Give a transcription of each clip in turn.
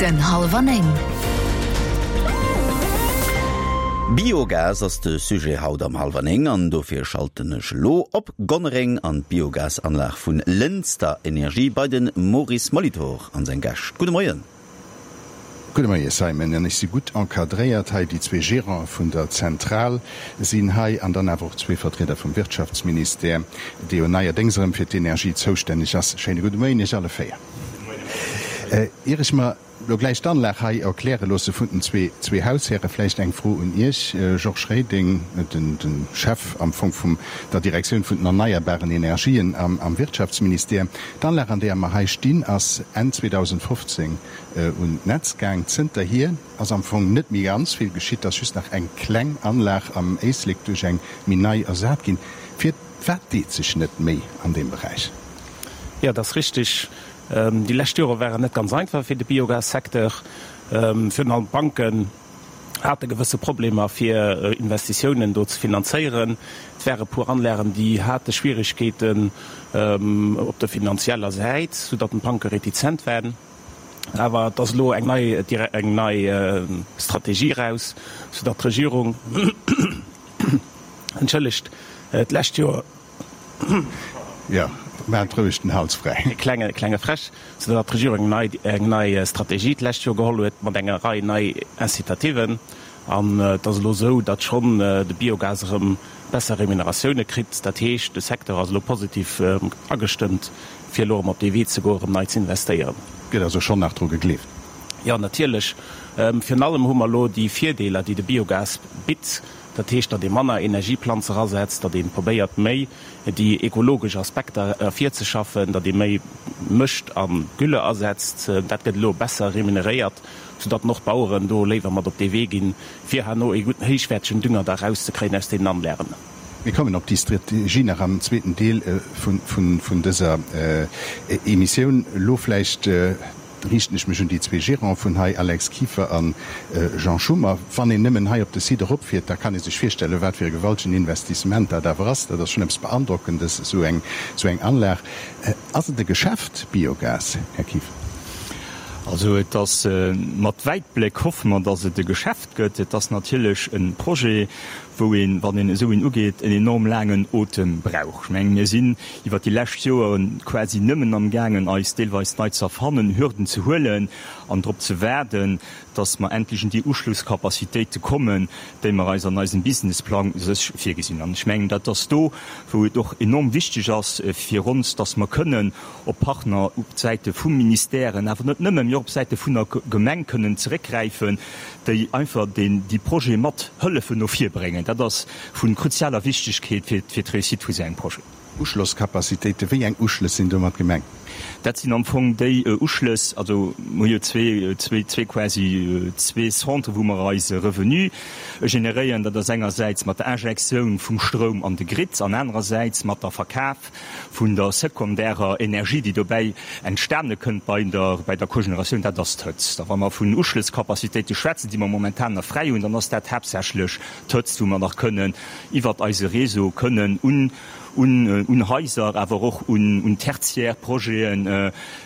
Den Hallwer 9. Biogas ass de Sujet haut am Hallwer 9 an dofir schalten ech elo op Gonnereng an d'Biogasanlag vun Lënster Energie bei den Maurice Molitor an seng Gäscht. Gudde Moien. Gudde Moie Simon, an ech si gutt encadréiert hei. Déi zwee Gérante vun der Zentral sinn hei an dann awer och zwee Vertrieder vum Wirtschaftsministère, dee jo neierdéngs erëm fir d'Energie zoustänneg ass. Schéine gudde Moien Iech alle véier. Ier ech mer elo gläich d'Anlag hei erkläre loosse vun den zwee Haushäre, vläicht eng Fro un Iech, Georges Reding, de Chef am Fong vum der Direktioun vun den erneierbaren Energien am Wirtschaftsministère. D'Anlag, an deeër mer hei stinn, ass Enn 2015 un d'Netz gaang. Zënterhier ass am Fong net méi ganz vill geschitt, et ass just nach eng kleng Anlag am Éislek duerch eng méi nei ersat ginn. Firwat deet sech net méi an deem Beräich? Jo, et ass richtig. Déi lescht Jore waren net ganz einfach fir de Biogassecteur. Virun allem d'Banken hate gewësse Problemer fir Investitiounen do ze finanzéieren. Et ware puer Anlagen, déi hate Schwierigkeeten op der finanzieller Säit, soudatt d'Banke retizent waren. Awer et ass elo eng nei, eng nei Strategie eraus, soudatt d'Regierung, entschëllegt, d'lescht Joer, Jo, maacht roueg den Hals fräi. E klenge, klenge Fräsch, soudatt d'Regierung eng nei, eng nei Strategie d'lescht Joer geholl huet mat enger Rei nei Incitativen. An et ass elo esou, datt schonn de Biogas erëm besser Remuneratioune kritt. Dat heescht, de Secteur ass elo positiv agestëmmt, fir elo erëm op dee Wee ze goen, erëm nei ze investéieren. Gëtt also schonn nach dru gegleeft? Jo, natierlech. Virun allem hu mer elo déi Virdeeler, déi de Biogas bitt. Dat heescht, datt ee manner Energieplanze erasetzt, datt ee probéiert méi déi ekologesch Aspekter ervirzeschaffen, datt ee méi Mëscht a Gülle asetzt. Dat gëtt elo besser remuneréiert, soudatt och d'Baueren do léiwer mat op dee Wee ginn, fir herno ee gudden héichwäertegen Dünger da erauszekréien aus deenen Anlagen. Mir kommen op déi Strategie nach am zweeten Deel vun dëser Emissioun. Elo vläicht riichten ech mech un déi zwee Gérants vun hei, Alex Kieffer a Jean Schummer. Wann een nëmmen hei op de Site eropfiert, da kann ee sech virstellen, wat fir e gewaltegen Investissement dat awer ass. Dat ass schonn eppes Beandrockendes, esou eng, esou eng Anlag. Ass et e Geschäft, Biogas, Här Kieffer? Also et ass, mat Wäitbléck hoffe mer, datt et e Geschäft gëtt. Et ass natierlech e Projet, wou een, wann een esou een ugeet, en enorm laangen Otem brauch. Ech mengen, mir sinn iwwert déi lescht Joere quasi nëmmen amgaangen, eis deelweis nei ze erfannen, Hürden ze huelen an drop ze waarden, dass mer endlech un déi Uschlusscapacitéite kommen, déi mer eis an eisem Businessplang sech virgesinn. An ech mengen, dat ass do, wou et och enorm wichteg ass fir ons, dass mer kënnen op Partner op Säite vu Ministèren, awer net nëmmen, mee och op Säite vun der Gemeng kënnen zeréckgräifen, déi einfach déi Projete mat hëllefen no vir bréngen. Dat ass vu kruzialer Wichtigkeet fir d'Réussite vu sou engem Projet. Uschlosscapacitéiten, Wéi eng Uschlëss sinn domat gemengt? Dat sinn am Fong déi Uschlëss, also mer hu jo zwee, zwee, zwee quasi zwee Centres, wou mer eise Revenu generéieren. Dat ass engersäits mat der Injektioun vum Stroum an de Grid an anerersäits mat der Verkaf vun der sekondärer Energie, déi dobäi entstane kënnt bei der, bei der Cogeneratioun, dat ass d'Hëtzt. A wa mer vun Uschlësscapacitéite schwätzen, déi mer momentan nach fräi hunn, dann ass dat haaptsächlech d'Hëtzt, wou mer nach kënnen iwwert eise Réseau kënnen un, un, un Haiser, awer och un, un tertiär Projete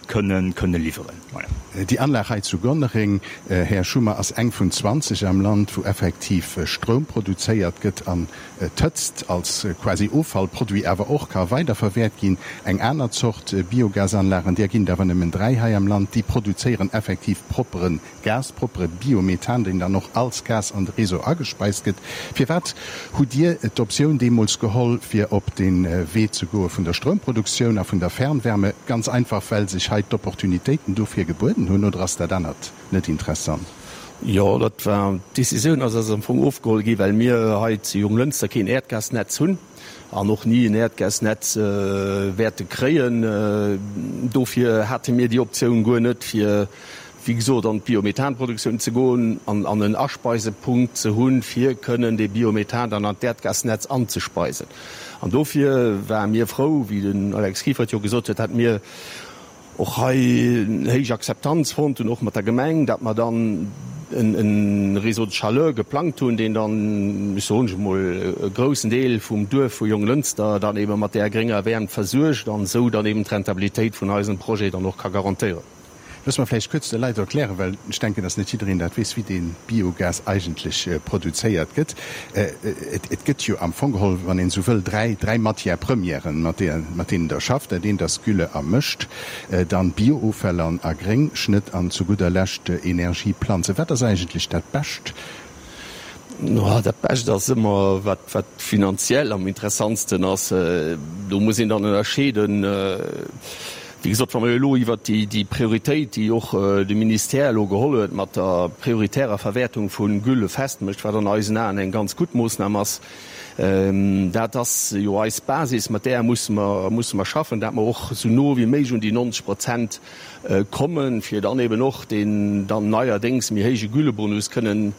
kënnen, kënnen liwweren. Voilà. Déi Anlag hei zu Gonnereng, Här Schummer, ass eng vun 20 am Land, wou effektiv Stroum produzéiert gëtt an d'Hëtzt als quasi Offallproduit awer och ka weiderverwäert ginn. Eng aner Zort Biogasanlagen, där ginn et awer nëmmen 3 hei am Land, déi produzéieren effektiv proppere Gas, proppere Biomethan, deen dann och als Gas an de Réseau agespeist gëtt. Firwat hutt Dir d'Optioun deemools geholl, fir op de Wee ze goe vun der Stroumproduktioun a vun der Fernwärme? Ganz einfach, well sech hei d'Opportunitéiten dofir gebueden hunn, oder ass dat anert net interessant? Jo, dat war, d'Decisioun ass eis am Fong ofgeholl gi well mir hei zu Jonglënster keen Äerdgasnetz hunn an och ni en Äerdgasnetz wäerte kréien. Dofir hate mir déi Optioun guer net, fir wéi gesot an d'Biomethanproduktioun ze goen an an en Aspeisepunkt ze hunn, fir kënnen dee Biomethan dann an d'Äerdgasnetz anzespeisen. An dofir ware mir frou, wéi den Alex Kieffer et jo gesot huet, dat mir och hei héich Akzeptanz fonnt hunn, och mat der Gemeng, dat mer dann e Réseau de chaleur geplangt hunn, deen dann, ech soen emol, e groussen Deel vum Duerf vu Jonglënster dann ebe mat där grénger Wäermt versuergt an esou dann eben d'Rentabilitéit vun eisem Projet dann och ka garantéieren. Loosse mer vläicht kuerz de Leit erklären, well ech denken, dass net jiddereen dat weess, wéi dee Biogas eigentlech produzéiert gëtt. Et gëtt jo am Fong geholl, wann een esou wëll, dräi Matières premièren, mat deenen Der schafft. Dat eent ass Gülle a Mëscht, dann Biooffäll an a Gréngschnëtt an zu gudder Lescht Energieplanzen. Wat ass eigentlech dat Bescht? Dat Bescht ass ëmmer, wat finanziell am interessantsten ass. Do muss een dann ënnerscheeden. Wéi gesot, wa mer elo iwwert déi Prioritéit, déi och de Ministère elo geholl huet mat der prioritärer Verwäertung vu Gülle festmécht, wat an eisen Aen eng ganz gutt Moossnam ass, dat ass jo eis Basis, mat där musse mer, musse mer schaffen, dat mer och esou no wéi méiglech un déi 90 Prozent kommen, fir dann eben och deen dann neierdéngs méi héije Güllebonus kënnen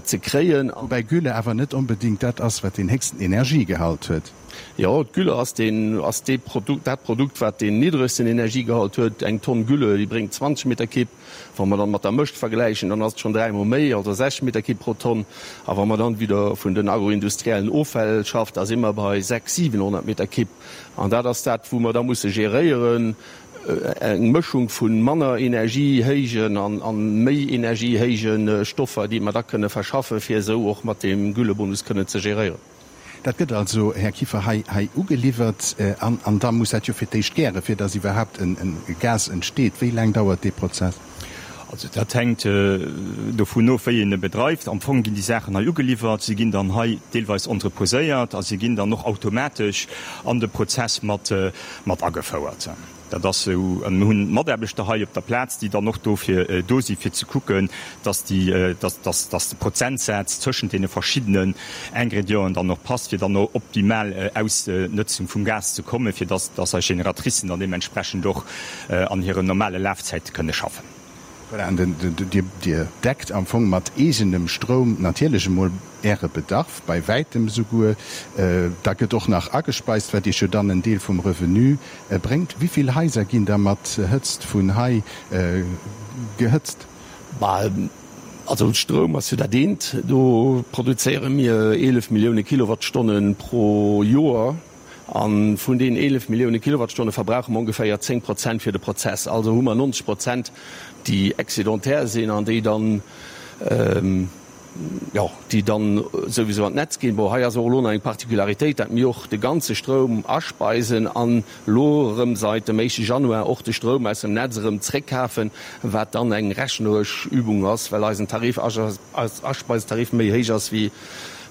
ze kréien. Woubäi Gülle awer net onbedéngt dat ass, wat deen héchsten Energiegehalt huet. Jo, d'Gülle ass deen, ass dee Produkt, dat Produkt, wat deen niddregsten Energiegehalt huet. Eng Tonn Gülle, déi bréngt 20 Meter Kibb. Wa mer dann mat der Mëscht vergläichen, dann ass et schonn dräimol méi, also 60 Meter Kibb pro Tonn. A wa mer dann wieder vun den agroindustriellen Offäll schafft, da si mer bei 6, 700 Meter Kibb. An dat ass dat, wou mer da musse geréieren, eng Mëschung vu manner energiehéijen an méi energiehéije Stoffer, déi mer da kënne verschaffen, fir esou och mat deem Güllebonus kënnen ze geréieren. Dat gëtt also, Här Kieffer, hei hei ugeliwwert an an da muss dat jo fir d'éischt gären, fir datt iwwerhaapt en Gas entsteet. Wéi laang dauert dee Prozess? Also dat hänkt dovun of, wéi een e bedreift. Am Fong ginn déi Saachen hei ugeliwwert, se ginn dann hei deelweis entreposéiert a se ginn dann och automatesch an de Prozess mat mat agefouert. Dat ass esou. An mir hunn Mataarbechter hei op der Plaz, déi dann och dofir do si fir ze kucken, dass déi, dass, dass, dass de Prozentsaz tëschent deene verschiddenen Ingredienten dann och passt, fir dann och optimal Ausnëtzung vum Gas ze kommen, fir dass, dass eis Génératricen dann deementsprechend och an hiren normale Lafzäite kënne schaffen. Voilà, an den, Dir, Dir deckt am Fong mat eegenem Stroum natierlech emol Äre Bedarf, bei wäitem esouguer. Da gëtt och nach agespeist, wat Iech jo dann en Deel vum Revenu bréngt. Wéi vill Haiser ginn da mat Hëtzt vun hei gehëtzt? Bah, also Stroum ass jo dat eent. Do produzéiere mir 11 Millioune Kilowattstonne pro Joer. A vun deenen 11 Millioune Kilowattstonne verbrauche mer ongeféier 10 Prozent fir de Prozess. Also hu mer 90 Prozent, déi excédentaire sinn an déi dann, jo, déi dann souwisou an d'Netz ginn. Bon, hei ass och elo nach eng Particularitéit, dat mir och de ganze Stroum aspeisen an elo erëm seit dem éischte Januar och de Stroum aus dem Netz erëm zréckkafen, wat dann eng rechneresch Übung ass, well eisen Tarif, eis Aspeisetarif méi héich ass wéi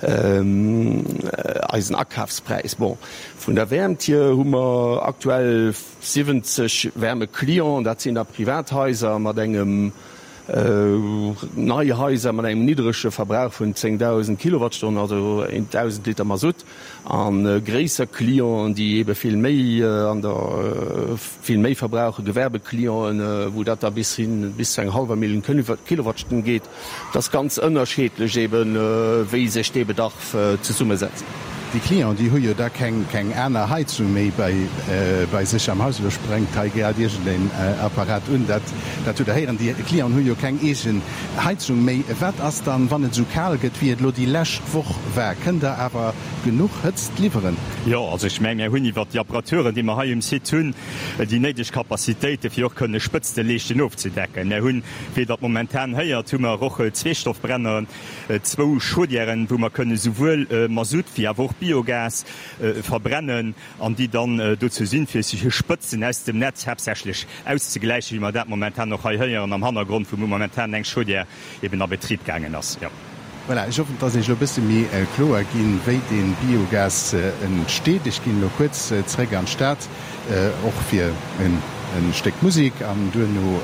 eisen Akafspräis. Bon, vun der Wäermt hier hu mer aktuell 70 Wärmeclienten, dat sinn da Privathaiser mat engem, nei Haiser mat engem niddrege Verbrauch vun 10.000 Kilowattstonnen, also 1.000 Liter Masutt, a gréisser Clienten, déi eebe vill méi an der vill méi verbrauchen, Gewerbeclienten, wou dat da bis hin bis zu enger hallwer Millioun Kilowattstonn geet. Et ass ganz ënnerscheedlech eben, wéi sech dee Bedarf zesummesetzt. Déi Clienten, déi hu jo da keng aner Heizung méi bei sech am Haus. Elo sprengt hei grad iergendeen Apparat un, dat hutt Der héieren. Déi Clienten hu jo keng eegen Heizung méi. Wat ass dann, wann et esou kal gëtt, wéi et elo déi lescht Woch war? Kënnt Der awer genuch Hëtzt liwweren? Jo, also ech mengen, mir hunn iwwert déi Apparaturen, déi mer hei um Site hunn, déi néideg Capacitéiten, fir och kënne Spëtzteleeschten ofzedecken. Mir hunn, Wéi Der et momentan héiert, hu mer och Zweestoffbrenner, zwou Chaudièren, wou mer kënne souwuel Masutt wéi awer och Biogas verbrennen an déi dann dozou sinn, fir Spëtzen aus dem Netz haaptsächlech auszegläichen, wéi mer dat momentan och hei héieren am Hannergrond, wou momentan eng Chaudière eben a Betrib gaangen ass. Voilà, ech hoffen, et ass Iech elo e bësse méi kloer ginn, wéi dee Biogas entsteet. Ech ginn elo kuerz zeréck an d'Stad, och fir e Stéck Musek an duerno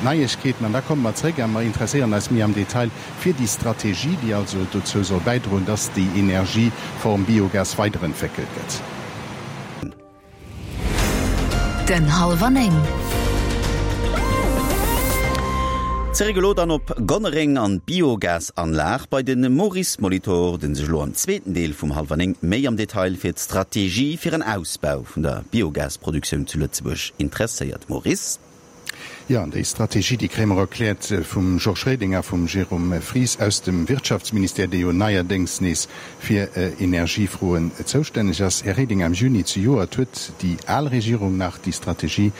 d'Neiegkeeten. An da komme mer zeréck a mer interesséieren eis méi am Detail fir déi Strategie, déi also dozou soll bäidroen, dass déi Energieform Biogas weiderentwéckelt gëtt. Den Halwer 9. Zeréck elo dann op Gonnereng an d'Biogasanlag bei de Maurice Molitor, den sech elo am zweeten Deel vum Halwer 9 méi am Detail fir d'Strategie fir en Ausbau vun der Biogasproduktioun zu Lëtzebuerg interesséiert. Maurice. Jo, an déi Strategie, déi kréie mer erkläert vum Georges Reding a vum Jérôme Fries aus dem Wirtschaftsministère, dee jo neierdéngs nees fir Energiefroen zoustänneg ass. Här Reding, am Juni zejoert huet déi al Regierung nach déi Strategie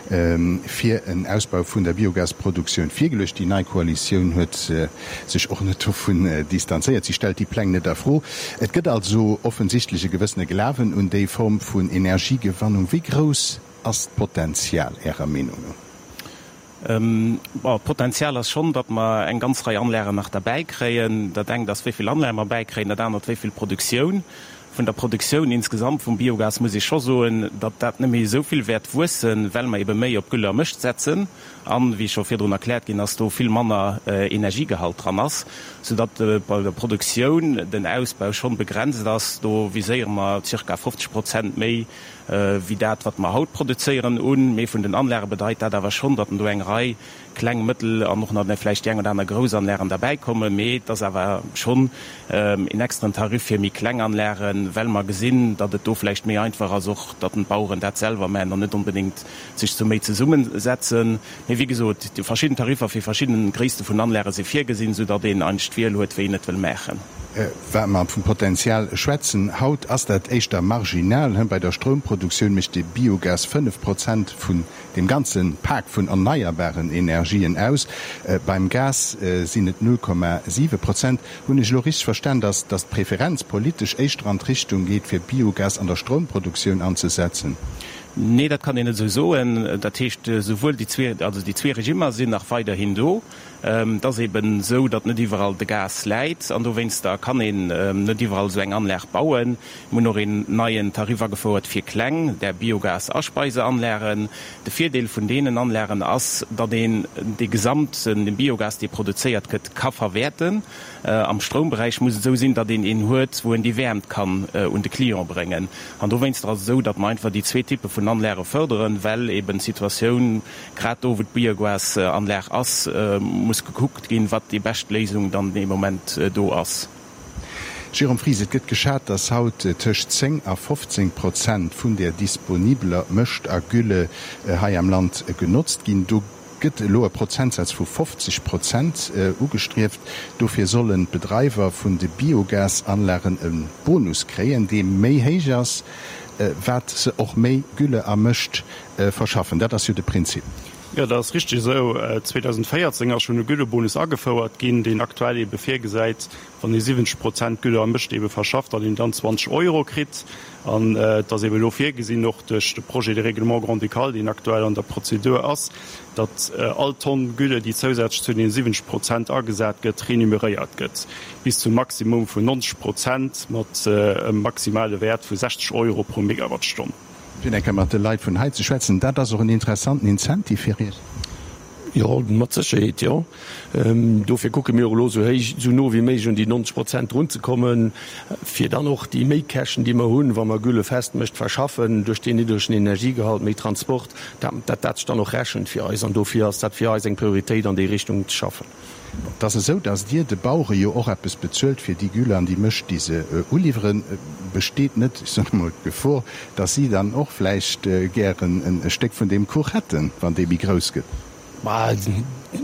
fir en Ausbau vun der Biogasproduktioun virgeluecht. Déi nei Koalitioun huet sech och net dovun distanzéiert. Si stellt déi Pläng net a Fro. Et gëtt also offensichtlech e gewëssene Glawen un déi Form vun Energiegewannung. Wéi grouss Ass d'Potenzial Ärer Meenung no? Bon, d'Potenzial ass schonn, datt mer eng ganz Rei Anlagen nach derbäi kréien. Dat engt ass, wéi vill Anlage mer bäikréien, dat anert, wéi vill Produktioun. Vun der Produktioun insgesamt vum Biogas muss ee scho soen, datt dat net méi esou vill wäert wuessen, well mer ebe méi op Gülle a Mëscht setzen an, wéi scho virdrun erkläert ginn ass, do vill manner Energiegehalt dran ass, soudatt bei der Produktioun den Ausbau schonn begrenzt ass. Do viséiere mer zirka 50 Prozent méi wéi dat, wat mer haut produzéieren, un. Mee vun den Anlage bedeit dat awer schonn, datt do eng Rei kleng, mëttel an och nach vläicht déi eng oder aner grouss Anlagen derbäikommen. Mee et ass awer schonn een extraen Tarif fir méi kleng Anlagen, well mer gesinn, datt et do vläicht méi einfach ass och, datt d'Baueren dat selwer maachen an net onbedéngt sech zu méi zesummesetzen. Mee wéi gesot, déi verschidden Tariffer fir verschidden Gréisste vun Anlage si virgesinn, soudatt een eigentlech d'Wiel huet, wéi een et wëll maachen. Wa mer vum Potenzial schwätzen, haut ass dat éischter marginal. Bei der Stroumproduktioun mécht de Biogas 5 Prozent vun deem ganze Pak vun erneierbaren Energien aus. Beim Gas sinn et 0,7 Prozent. Hunn ech elo richteg verstan, dass d'Preferenz politesch éischter an d'Richtung geet, fir Biogas an der Stroumproduktioun anzesetzen? Nee, dat kann een net esou soen. Dat heescht, souwuel déi zwee, also déi zwee Regimmer sinn nach weiderhin do. Et ass eben esou, datt net iwwerall de Gas läit an dowéinster kann een net iwwerall esou eng Anlag bauen. Mir hunn och een neien Tarif agefouert fir kleng, där Biogas-Aspeiseanlagen. De Virdeel vun deenen Anlagen ass, datt een dee gesamten Biogas, dee produzéiert gëtt, ka verwäerten. Am Stroumberäich muss et esou sinn, datt een een huet, wou een déi Wäermt kann un de Client bréngen. An dowéinster ass et esou, datt mer einfach déi zwee Typpe vun Anlage fërderen, well eben d'Situatioun, Grad do, wou d'Biogasanlag ass, muss gekuckt ginn, wat déi bescht Léisung dann dee Moment do ass. Jérôme Fries, Et gëtt geschat, datt haut tëscht 10 a 15 Prozent vun der disponibeler Mëscht a Gülle hei am Land genotzt ginn. Do gëtt elo e Prozentsaz vu 50 Prozent ugestrieft. Dofir sollen d'Bedreiwer vun de Biogasanlagen e Bonus kréien, dee méi héich ass, wat se och méi Gülle a Mëscht Verschaffen. Dat ass jo de Prinzip. Jo, dat ass richteg esou. 2014 ass schonn e Güllebonus agefouert ginn, deen aktuell eebe virgesäit, wann ee 70 Prozent Gülle am Mëscht eebe verschafft, datt een dann 20 Euro kritt. An et ass eebe elo virgesinn, och duerch de Projet de règlement grand-ducal, deen aktuell an der Prozedur ass, datt all Tonn Gülle, déi zousätzlech zu deene 70 Prozent agesat gëtt, renumeréiert gëtt, bis zum Maximum vun 90 Prozent mat e maximale Wäert vu 60 Euro pro Megawattstonn. Fir eng Kéier mat de Leit vun hei ze schwätzen, dat ass och en interessanten Incentive fir Iech. Jo, mat Sécherheet, jo. Dofir kucke mir och elo esou héich, esou no wéi méiglech un déi 90 Prozent drunzekommen, fir dann och déi Méikäschten, déi mer hunn, wa mer Gülle festmëscht verschaffen, duerch deen niddregen Energiegehalt, méi Transport, dat dat sech dann och rechent fir eis. An dofir ass dat fir eis eng Prioritéit, an déi Richtung ze schaffen. Et ass esou, datt Dir de Bauere jo och eppes bezuelt fir déi Gülle an déi Mëscht, déi se uliwweren. Besteet net, ech soen emol, d'Gefor, datt si dann och vläicht gären e Stéck vun deem Kuch hätten, wann dee méi grouss gëtt? Bah,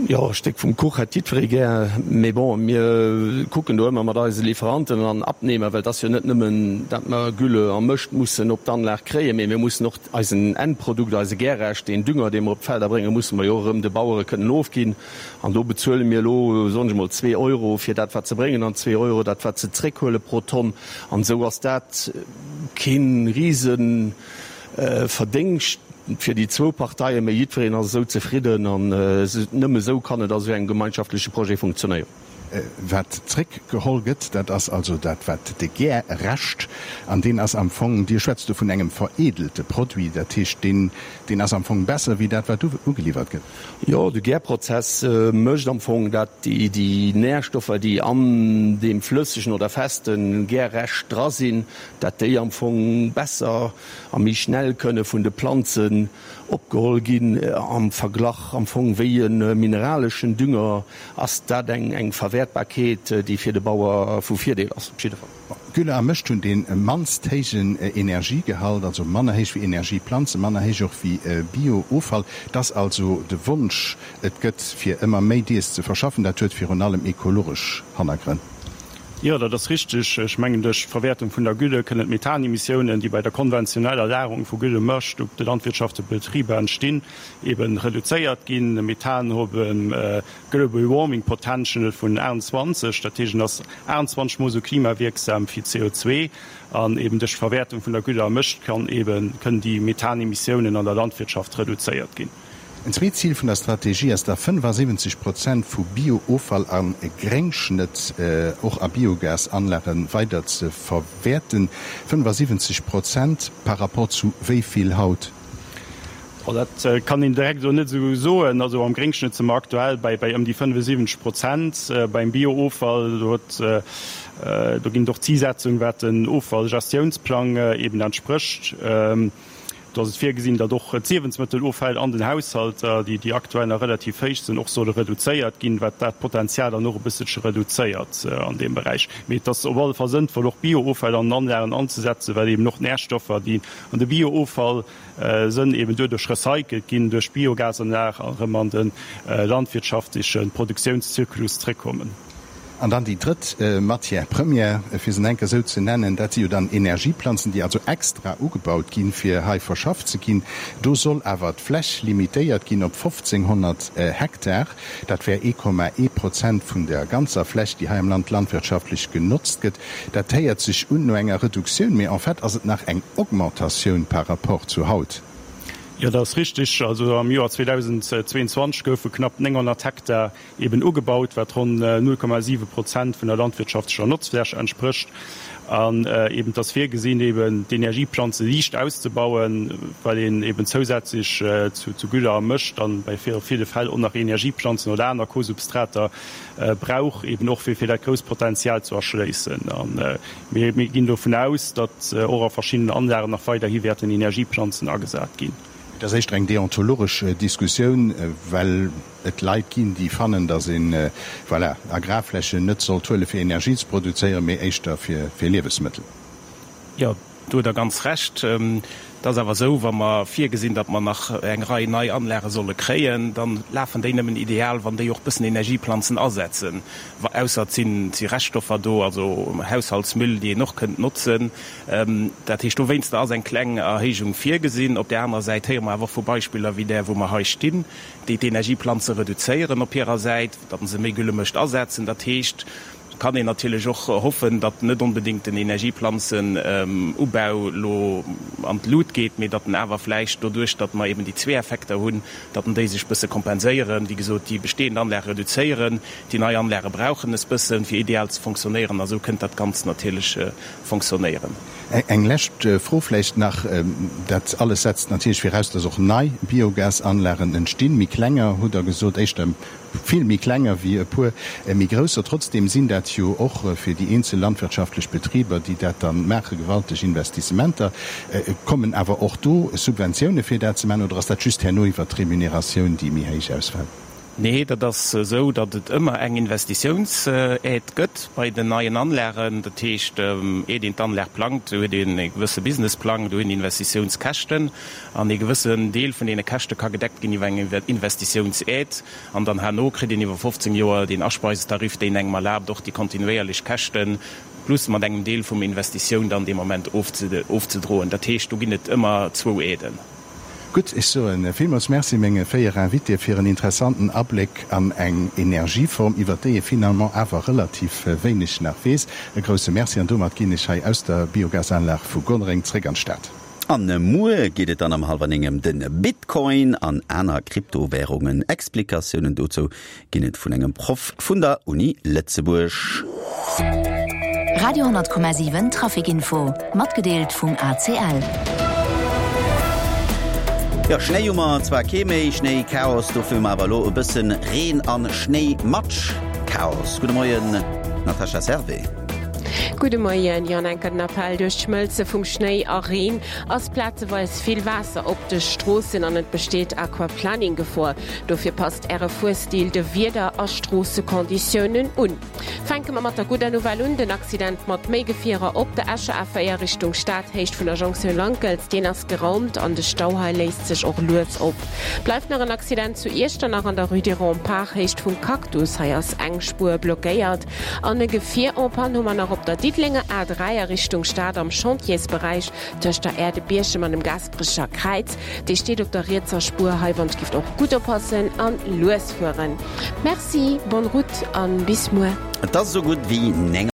jo, e Stéck vum Kuch hätt jiddweree gär. Mee bon, mir kucken do ëmmer mat eise Lieferanten an Abnehmer, well et ass jo net nëmmen, datt mer Gülle a Mëscht mussen op d'Anlag kréien, mee mir mussen och eisen Endprodukt, eise Gärrescht, deen Dünger, dee mer op d'Felder bréngen, musse mer jo och erëm de Bauere kënnen ofginn. An do bezuele mir elo, soen ech emol, zwee Euro fir dat, wat se bréngen, an zwee Euro dat, wat se zréckhuele pro Tonn. An esou ass dat kee Riseverdéngscht fir déi zwou Parteien, mä jiddwereen ass esou zefridden. An nëmme esou kann et a sou engem gemeinschaftleche Projet funktionéieren. Wat zréckgeholl gëtt, dat ass also dat, wat de Gärrescht, an deen ass am Fong, Dir schwätzt do vun engem vereedelte Produit, dat heescht, deen, deen ass am Fong besser wéi dat, wat ugeliwwert gëtt. Jo, de Gärprozess mécht am Fong, dat déi Närstoffer, déi an deem flëssegen oder feste Gärrescht dra sinn, dat déi am Fong besser a méi schnell kënne vun de Planzen opgeholl ginn am Verglach am Fong wéi e mineraleschen Dünger. Ass dat eng Verwäertbarkeet, déi fir de Bauer vu Virdeel ass? Op jidde Fall. Gülle a Mëscht hunn dee mannst héijen Energiegehalt, also manner héich wéi Energieplanzen, manner héich och wéi Bio-Offall. Et ass also de Wonsch, et gëtt, fir ëmmer méi dees ze verschaffen. Dat huet virun allem ekologesch Hannergrënn. Jo, dat ass richteg. Ech mengen, duerch d'Verwäertung vun der Gülle kënnen d'Methanemissiounen, déi bei der konventioneller Lagerung vu Güllemëscht op de landwirtschaftleche Betriber entstinn, eben reduzéiert ginn. Methan huet e Global Warming Potential vun 28, dat heescht, en ass 28 mol esou klimawierksam wéi CO2. An eben duerch d'Verwäertung vun der Gülle a Mëscht kann eben, kënnen déi Methanemissiounen an der Landwirtschaft reduzéiert ginn. En zweet Zil vun der Strategie ass da 75 Prozent vu Bio-Offall a Gréngschnëtt och a Biogasanlage weider ze verwäerten. 75 Prozent par rapport zu wéi vill haut? Dat kann een direkt elo net esou soen. Also am Gréngschnëtt si mer aktuell bei ëm déi 75 Prozent. Beim Bio-Offall, do huet, do ginn et och Zisetzung wat den Offallgestiounsplang eben entsprécht. Do ass et virgesinn, datt och d'Liewensmëtteloffäll an den Haushalter, déi aktuell nach relativ héich sinn, och solle reduzéiert ginn, wat dat Potenzial dann och e bësselche reduzéiert an deem Beräich. Mee et ass op alle Fall sënnvoll, och Biooffäll an den Anlagen anzesetzen, well eben och d'Närstoffer, déi an de Biooffall sënn, eben doduerch recycelt ginn duerch d'Biogasanlag a erëm an de landwirtschaftleche Produktiounszyklus zréckkommen. An dann déi drëtt Matière première, fir se enker esou ze nennen, dat si jo dann Energieplanzen, déi also extra ugebaut ginn, fir hei verschafft ze ginn. Do soll awer d'Fläch limitéiert ginn op 1.500 Hektar. Dat wär 1,1 Prozent vun der ganzer Fläch, déi hei am Land landwirtschaftlech genotzt gëtt. Dat héiert sech un no enger Reduktioun, mee en fait ass et nach eng Augmentatioun par rapport zu haut. Jo, dat ass richtig. Also am Joer 2022 goufe knapp 900 Hektar eben ugebaut, wat ronn 0,7 Prozent vun der landwirtschaftlecher Notzfläch entsprécht. An eben et ass virgesinn, eben d'Energieplanze liicht auszebauen, well een eben zousätzlech zu Gülle a Mëscht dann bei ville Fäll och nach Energieplanzen oder aner Kosubstrater brauch, eben och fir fir dat grousst Potenzial ze erschléissen. A mir ginn dovun aus, datt och a verschiddenen Anlagen nach weiderhi wäerten Energieplanzen agesat ginn. Et ass éischter eng deontologesch Diskussioun, well et Leit ginn, déi fannen, datt een, voilà, Agrarflächen net sollt huele fir Energie ze produzéieren, mee éischter fir Liewesmëttel. Jo, do hutt Der ganz Recht. Et ass awer esou, wa mer virgesinn, datt mer nach eng Rei nei Anlage solle kréien, da lafen déi nëmmen ideal, wann déi och bëssen Energieplanzen asetzen, ausser et sinn, et si Reststoffer do, also Haushaltsmüll, déi een och kënnt notzen. Dat heescht, dowéinster ass eng kleng Erhéijung virgesinn. Op där anerer Säit héiere mer awer och vu Beispiller wéi där, wou mer hei stinn, déi d'Energieplanze reduzéieren op hirer Säit, datt se méi Güllemëscht asetzen. Dat heescht, et kann een natierlech och hoffen, datt net onbedéngt den Energieplanzenubau elo an d'Lut geet, mee datt en awer vläicht doduerch, datt mer eben déi zwee Effekter hunn, datt en déi sech bësse kompenséieren. Wéi gesot, déi bestehend Anlage reduzéieren, déi nei Anlage brauchen es bëssen, fir ideal ze fonctionnéieren, a sou kënnt dat Ganzt natierlech fonctionnéieren. Eng lescht Fro vläicht nach, Dat alles setzt natierlech viraus, dass och nei Biogasanlagen entstinn, méi klenger, hutt Der gesot, éischter vill méi klenger wéi e puer méi grousser. Trotzdeem sinn dat jo och fir déi eenzel landwirtschaftlech Betriber, déi dat da maachen, gewalteg Investissementer. Kommen awer och do Subventioune fir dat ze maachen oder ass dat just herno iwwert d'Remuneratioun, déi méi héich ausfält? Nee, dat ass esou, datt et ëmmer eng Investitiounsaide gëtt bei den neien Anlagen. Dat heescht, iert een d'Anlag plangt, do huet een e gewësse Businessplang, do hunn Investitiounskäschten an ee gewëssen Deel vun deene Käschte ka gedeckt ginn iwwer eng Investitiounsaide. An dann herno kritt een iwwer 15 Joer deen Aspeisetarif, deen engem erlaabt, och déi kontinuéierlech Käschte plus mat engem Deel vum Investitioun dann dee Moment ofzedroen. Dat heescht, do ginn et ëmmer zwou Aiden. Gutt, ech soe villmools Merci menge 4 Invitéë fir en interessanten Abléck an eng Energieform, iwwer déi ee finalement awer relativ wéineg nach weess. E grousse Merci an domat ginn ech hei aus der Biogasanlag vu Gonnereng zréck an d'Stad. An muer geet et dann am hallwer 9 ëm de Bitcoin an aner Kryptowärungen. Explikatiounen dozou ginn et vun engem Proff vun der Uni Lëtzebuerg. Radio 10,7 Traficinfo, matgedeelt vum ACL. Jo, Schnéi hu mer zwar kee méi, Schnéichaos, dofir hu mer awer elo e bëssen Reen an Schnéimatsch-Chaos. Gudde Moien, Natascha Servais. Gudde Moien, Jo, an enker den Appell, Duerch d'Schmëlze vum Schnéi a Reen ass plazeweis vill Waasser op de Stroossen an et besteet Aquaplaning-Gefor. Dofir passt Äre Fuerstil de Wieder a Stroossekonditiounen un. Fänke mer mat der gudder Nouvelle un, Den Accident mat méi Gefierer op der Escher A4 Richtung Stad, Héicht vun der Jonktioun Lankels, deen ass geraumt an de Stau hei léist sech och lues op. Bleift nach en Accident zu Iechternach an der Rue des Remparts, Héicht vum Cactus, hei ass eng Spuer blockéiert. An e Gefier en panne hu mer nach op der Diddelenger A3 a Richtung Stad am Chantiersberäich tëscht der Aire de Bierchem an dem Gaasperecher Kräiz. Dee steet op der rietser Spuer. Hei wann gift och gutt oppassen an lues fueren. Merci, bonne route an bis muer. Et ass esou gutt wéi 9.